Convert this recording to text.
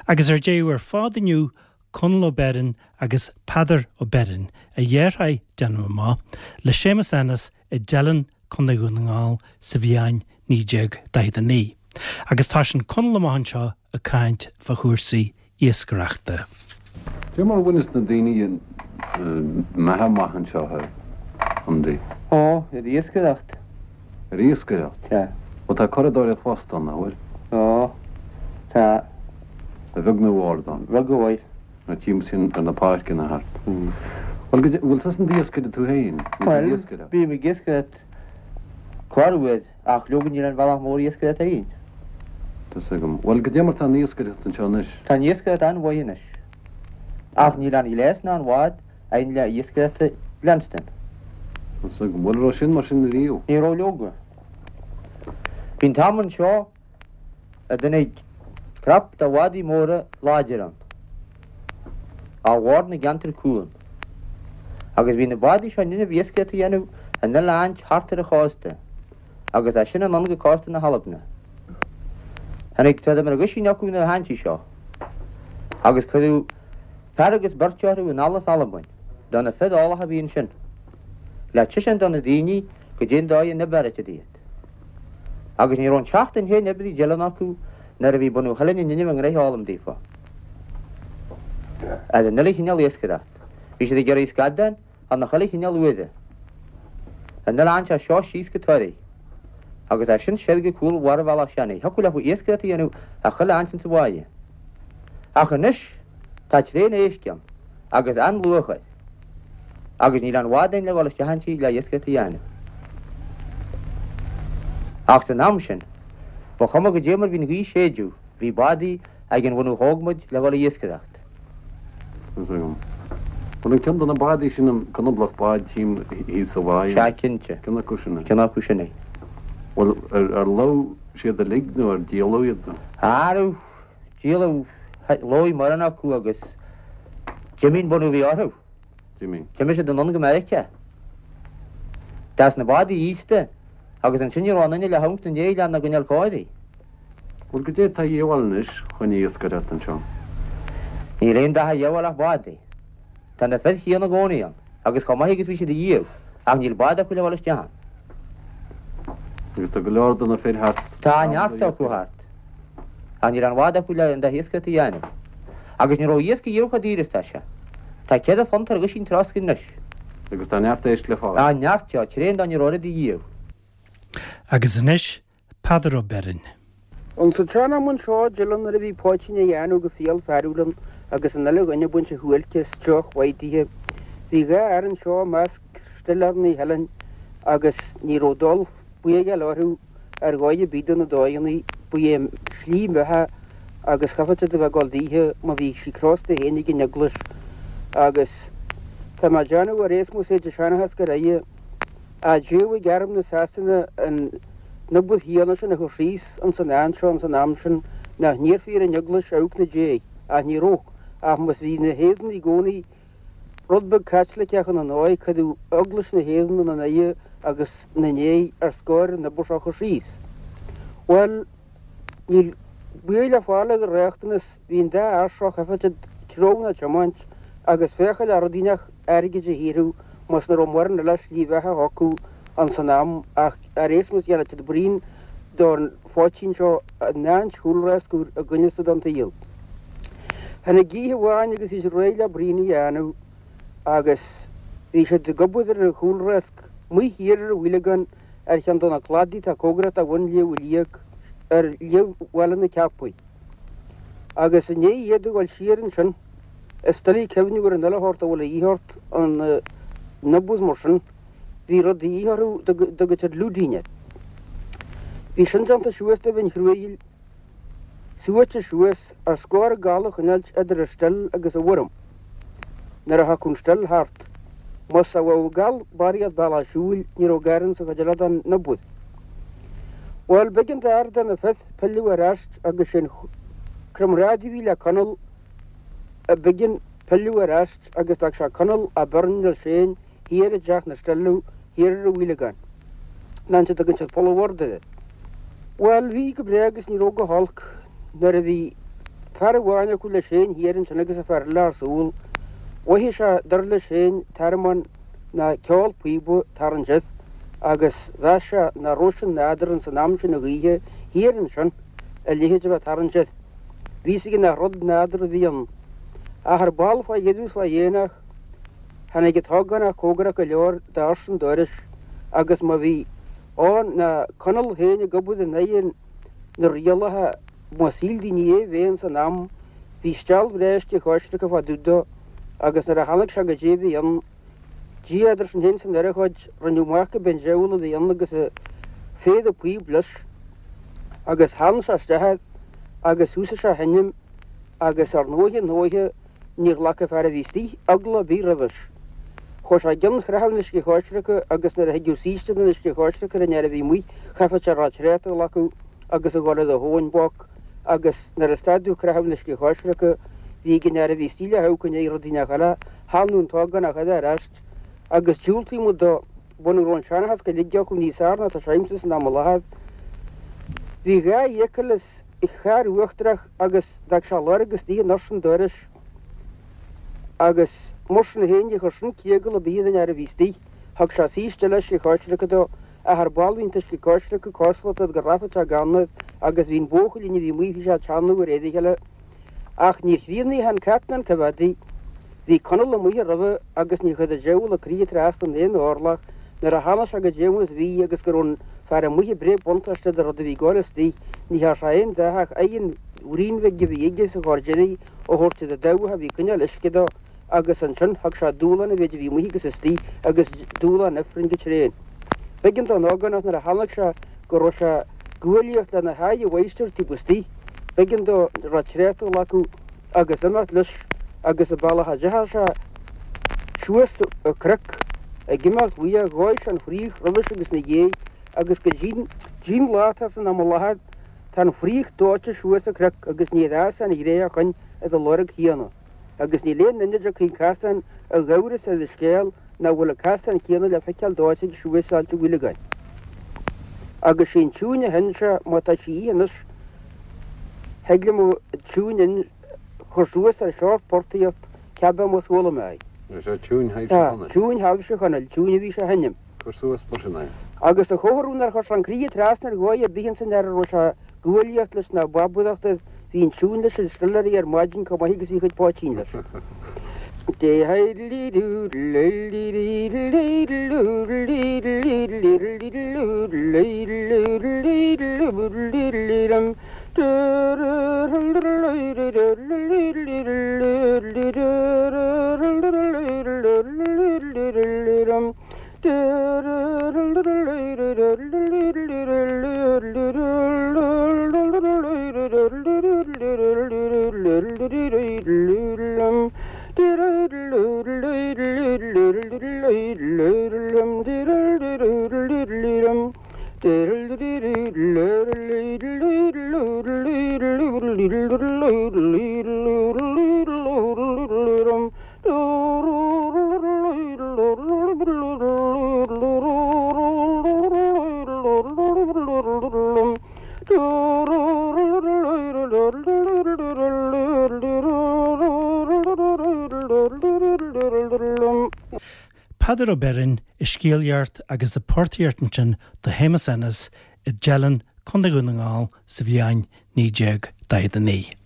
Agus ar deireadh ar fad inniu, Conall Ó Beirn agus Peadar Ó Beirn, a dheartháir, déanaim amach, le Séamus Ennis i dTeileann, Contae Dhún na nGall sa bhliain 1949. Agus toisíonn Conall amach anseo ag caint fá chúrsaí iascaireachta. Cé mar a bhaineas na daoine a mbeatha amach anseo a Andy? Ó, ar iascaireacht. Ar iascaireacht? Sea. Bhuel, tá curadóireacht fosta ann, nach bhfuil? Ó, tá. A bheag nó a mhór ann. A bheag a mhór. Na timpeall ar na páirceanna thart. Bhuel, go bhfuil tusa in d'iascaire tú féin? Bhuel, bím ag iascaireacht corruair, ach leoga níl aon bhealach mór iascaireachta againn. Tá's agam. Bhuel, goidé mar tá an iascaireacht anseo anois? Tá an iascaireacht an-mhaith anois. Ach níl aon ghléas ná aon bhád againn le iascaireacht a leanstan. Tá's agam. Bhuel, raibh sin mar sin riamh? Ní raibh leoga. Bhí an t-am anseo a dtáinig crop de bhádaí móra láidir ann, ó bhord na gceantar cuan, agus bhí na bádaí seo in innimh iascaireacht a dhéanamh in uile áit thart ar an chósta, agus as sin anonn go cósta na hAlbna. Tháinig tráth mar aguisín acu na háintí seo, agus cuireadh fear agus beirt orthu anall as Albain, do na fir eolacha a bhí ansin, le taispeáint do na daoine goidé an dóigh a n-oibreoidh iad. Agus ní raibh an tseachtain féin oibre i dTeileann acu nuair a bhí bunadh Theileann in innimh a ngnoithe a fhoghlaim daofa. Ar an uile chineál iascaireacht. Bhí siad ag iarraidh scadán ar na chuile chineál uaire. An uile áint as seo síos go Toraigh. Agus as sin soir go cúl bharr Bhealach Seanaidh. Thiocfadh leofa iascaireacht a dhéanamh ar chuile áint insa bháighe. Ach anois tá tréan éisc ann agus an-luach air. Agus níl aon bhád againn le dhul isteach inti le iascaireacht a dhéanamh. Ach san am sin, ba chuma goidé mar bhí an ghaoth ag séideadh, bhí bádaí ag an bhunadh thóg muid le dhul ag iascaireacht. Tá's agam. Bhuel, an ceann de na bádaí sin an conablach bád tchím thíos sa bháigh? Sea, cinnte. Ceann acu sin é. Ceann acu sin é. Bhuel, ar lobh siad uilig nó ar díoladh iad nó? Arbh díoladh, lobh mórán acu agus d'imigh an bunadh a bhí orthu. D'imigh. D'imigh siad anonn go Meiriceá. Des na bádaí aosta agus ansin ní raibh aon duine le hamharc ina ndiaidh lena gcoinneáil cóirithe. Bhuel, goidé atá a dhíobháil anois chun iascaireacht anseo? Níl aon dath a dhíobháil ach bádaí. Tá na fir chéanna i gcónaí ann, agus chomh maith agus bhí siad ariamh, ach níl bád acu le dhul isteach ann. Agus tá go leor de na fir thart. Tá neart acu thart. Ach níl aon bhád acu le an dath iascaireacht a dhéanamh. Agus ní raibh iasc ariamh chomh daor is tá sé. Tá £4 ar dhuisín trosc anois. Agus tá neart éisc le fáil. Tá neart, tá tréan dá ní raibh oiread ariamh. Agus anois, Peadar Ó Beirn. Ins an tsean-am anseo i dTeileann nuair a bhí poitín á dhéanamh go fial fearúil ann agus an uile dhuine ag baint a shuáilce is deoch mhaith daoithe, bhí dhá fhear anseo i measc stiléireanna Theileann agus ní raibh dul buígheáil orthu ar dhóigh ar bith do na dóigheanna, ba é a slí mbeatha agus chaithfeadh siad a bheith ag dul daoithe má bhí sí crosta féin ag an eaglais agus tá mé ag déanamh ar aon nós é de seanchas go raibh a d'fhéadfadh arm na Sasana an obair chéanna sin a chur síos ins an áit seo ins an am sin nach n-iarrfaí ar an Eaglais amharc ina diaidh, ach ní raibh, ach más bhí na hÉireannaigh i gcónaí rud beag Caitliceach ina ndóigh, cuireadh Eaglais na hÉireann ina n-aghaidh agus ina ndiaidh ar scor an obair seo a chur síos. Bhuel, Níl baol le fáil ar an riachtanas, bhí an dá fhear seo chaithfeadh siad treabhadh ná tiomáint agus féacháil le rud inteacht airgid a shaothrú más nach raibh mórán eile slí bheatha acu ins an am ach ar aon nós dhéanadh siad braon don phoitín seo in áint chúlrasc úr i gcoinneasta don tsaol. Tháinig oíche amháin agus bhí siad réidh le braon a dhéanamh agus bhí siad ag obair ar an chúlrasc amuigh thiar ar an bhFaoileagán ar cheann de na cladaí atá cóngarach do bhun Shliabh Liag ar Shliabh Bhaile na Ceapaí. Agus i ndiaidh iad a dhul siar ansin, is doiligh cuimhniú ar an uile shórt a bhfuil a dhíth ort in obair mar sin, bhí rud de dhíth orthu dá dtugadh siad lúidín air. Bhí sin déanta suas de mhin chruaidh. suaite suas ar scor gal a choinneáilt idir an still agus an bhfoirm nuair a thiocfadh an still thart. Más a bheadh gal barraíocht bealach siúil ní raibh gar insa chuid eile den obair. Bhuel, b'éigean d'fhear de na fir pilleadh ar ais agus sé'n comrádaí a bhí le Conall a b'éigean pilleadh ar ais agus d'fhág sé Conall Ó Beirn leis féin thiar i dteach na Stilleadh thiar ar an bhFaoileagán. An áit a dtugann siad Poll an Bhoird air. Bhuel, bhí go breá agus ní raibh go holc nuair a bhí. Fear amháin acu leis féin thiar ansin agus an fear eile ar siúl. Mhothaigh sé, dar leis féin, tormán ná ceol píoba ag tarraingt air agus mheas sé nach raibh sé nádúrtha ins an am sin a dh'oíche thiar ansin a leithéid a bheith ag tarraingt air. Bhí fhios aige nach rud nádúrtha a bhí ann. Ach ar ball fá dheireadh is fá dhéanach, tháinig an t-ógánach cóngarach go leor doras an dorais agus má bhí ann ná Conall féin ag obair in aghaidh na rialacha má shíl daoine é bheith ins an am, bhí steall bhreá uisce choisricthe fá dtaobh dó agus nuair a tháinig sé goidé a bhí ann, Dia eadar sinn féin is an urchóid, rinneadh amach go b'é an diabhal a bhí ann agus a phéire píob leis agus tharraing sé isteach air agus thosaigh sé a sheinm agus ar ndóiche ndóiche níor ghlac an fear a bhí istigh eagla ar bith roimhis. Chuaigh sé i gcionn chreathadh an uisce choisricthe agus nuair a thigeadh saoiste den uisce choisricthe ar an fhear a bhí amuigh chaithfeadh sé a raibh tréad a ghlacadh agus a dhul ar a thóin boc agus nuair a stadadh creathadh an uisce choisricthe bhí ag an fhear a bhí istigh le hamharc i ndiaidh rudaí nach eile Thanadh an t-ógánach eile ar ais agus diúltaíodh muid dó. Muna raibh an seanchas go uilig acu níos fearr ná tá sé agamsa san am i láthair. Bhí dhá fhiacail is charr uachtarach agus d'fhág sé lorg istigh i ndoirse an dorais agus mar sin féin níor chuir sin criogal ar bith ar an fhear a bhí istigh. Thug sé saoiste eile uisce choisricthe dó ach ar ball bhí an t-uisce coisricthe cosúil le go rachadh sé gann air agus bhí an buachaillín a bhí amuigh bhí sé ag teannadh ar éadaigh eile. Ach níor chríochnaigh an cat ná an coimheádaí. Bhí Conall amuigh roimhe agus níor chuir an diabhal a croí trasna in aon orlach nuair a tháinig sé goidé mar is bhí agus go raibh an fear amuigh ag breith buntáiste de rud a bhí ag gabháil istigh. Ní thearn sé aon dath ach aghaidh an bhraoin bhig a bhí aige sa chor deiridh a thabhairt do dhabhach a bhí ag coinneáil uisce dó agus ansin thug sé dúshlán an mhéid a bhí amuigh agus istigh agus dúshlán ifrinn go tréan. B'éigean don ógánach nuair a chonaic sé go raibh sé ag guaillíocht lena haghaidh a mháistir taobh istigh, b'éigean dó a raibh tréadta a ghlacadh agus imeacht leis agus an bealach a dteachaigh sé suas an cnoc ag imeacht uaidh dhóigh sé an fraoch roimhis agus ina dhiaidh agus go dtí'n lá atá san am i láthair tá an fraoch dóite suas an cnoc agus níor fhás an ghné ó shoin ar an lorg chéanna. Agus níl aon duine a dtiocfaidh an casán i gcabhras ar an scéal nach bhfuil an casán céanna le feiceáil dóite aige suas Ailt an Fhaoileagáin. Agus sé an tiúin a sheinn sé, má tá sí imithe anois, thig liom an tiúin a chur suas ar short portaíocht, cibé más chuala mé í. Is é tiúin Thaidhbhse Tá, Chonaill. tiúin Thaidhbhse Chonaill, tiúin a bhí sé a sheinm. Cur suas mar sin é. Agus a chomhartha nár chuir sé an croí trasna ar dhóigh ar bith ins an fhear a raibh sé ag guaillíocht leis ná babaireacht air, bhí an tiúin leis ar stiléirí ar maidin chomh maith agus bhí a chuid poitín leis. Peadar Ó Beirn ag scéalaíocht agus ag portaíocht ansin do Shéamus Ennis i dTeileann, Contae Dhún na nGall sa bhliain 1949.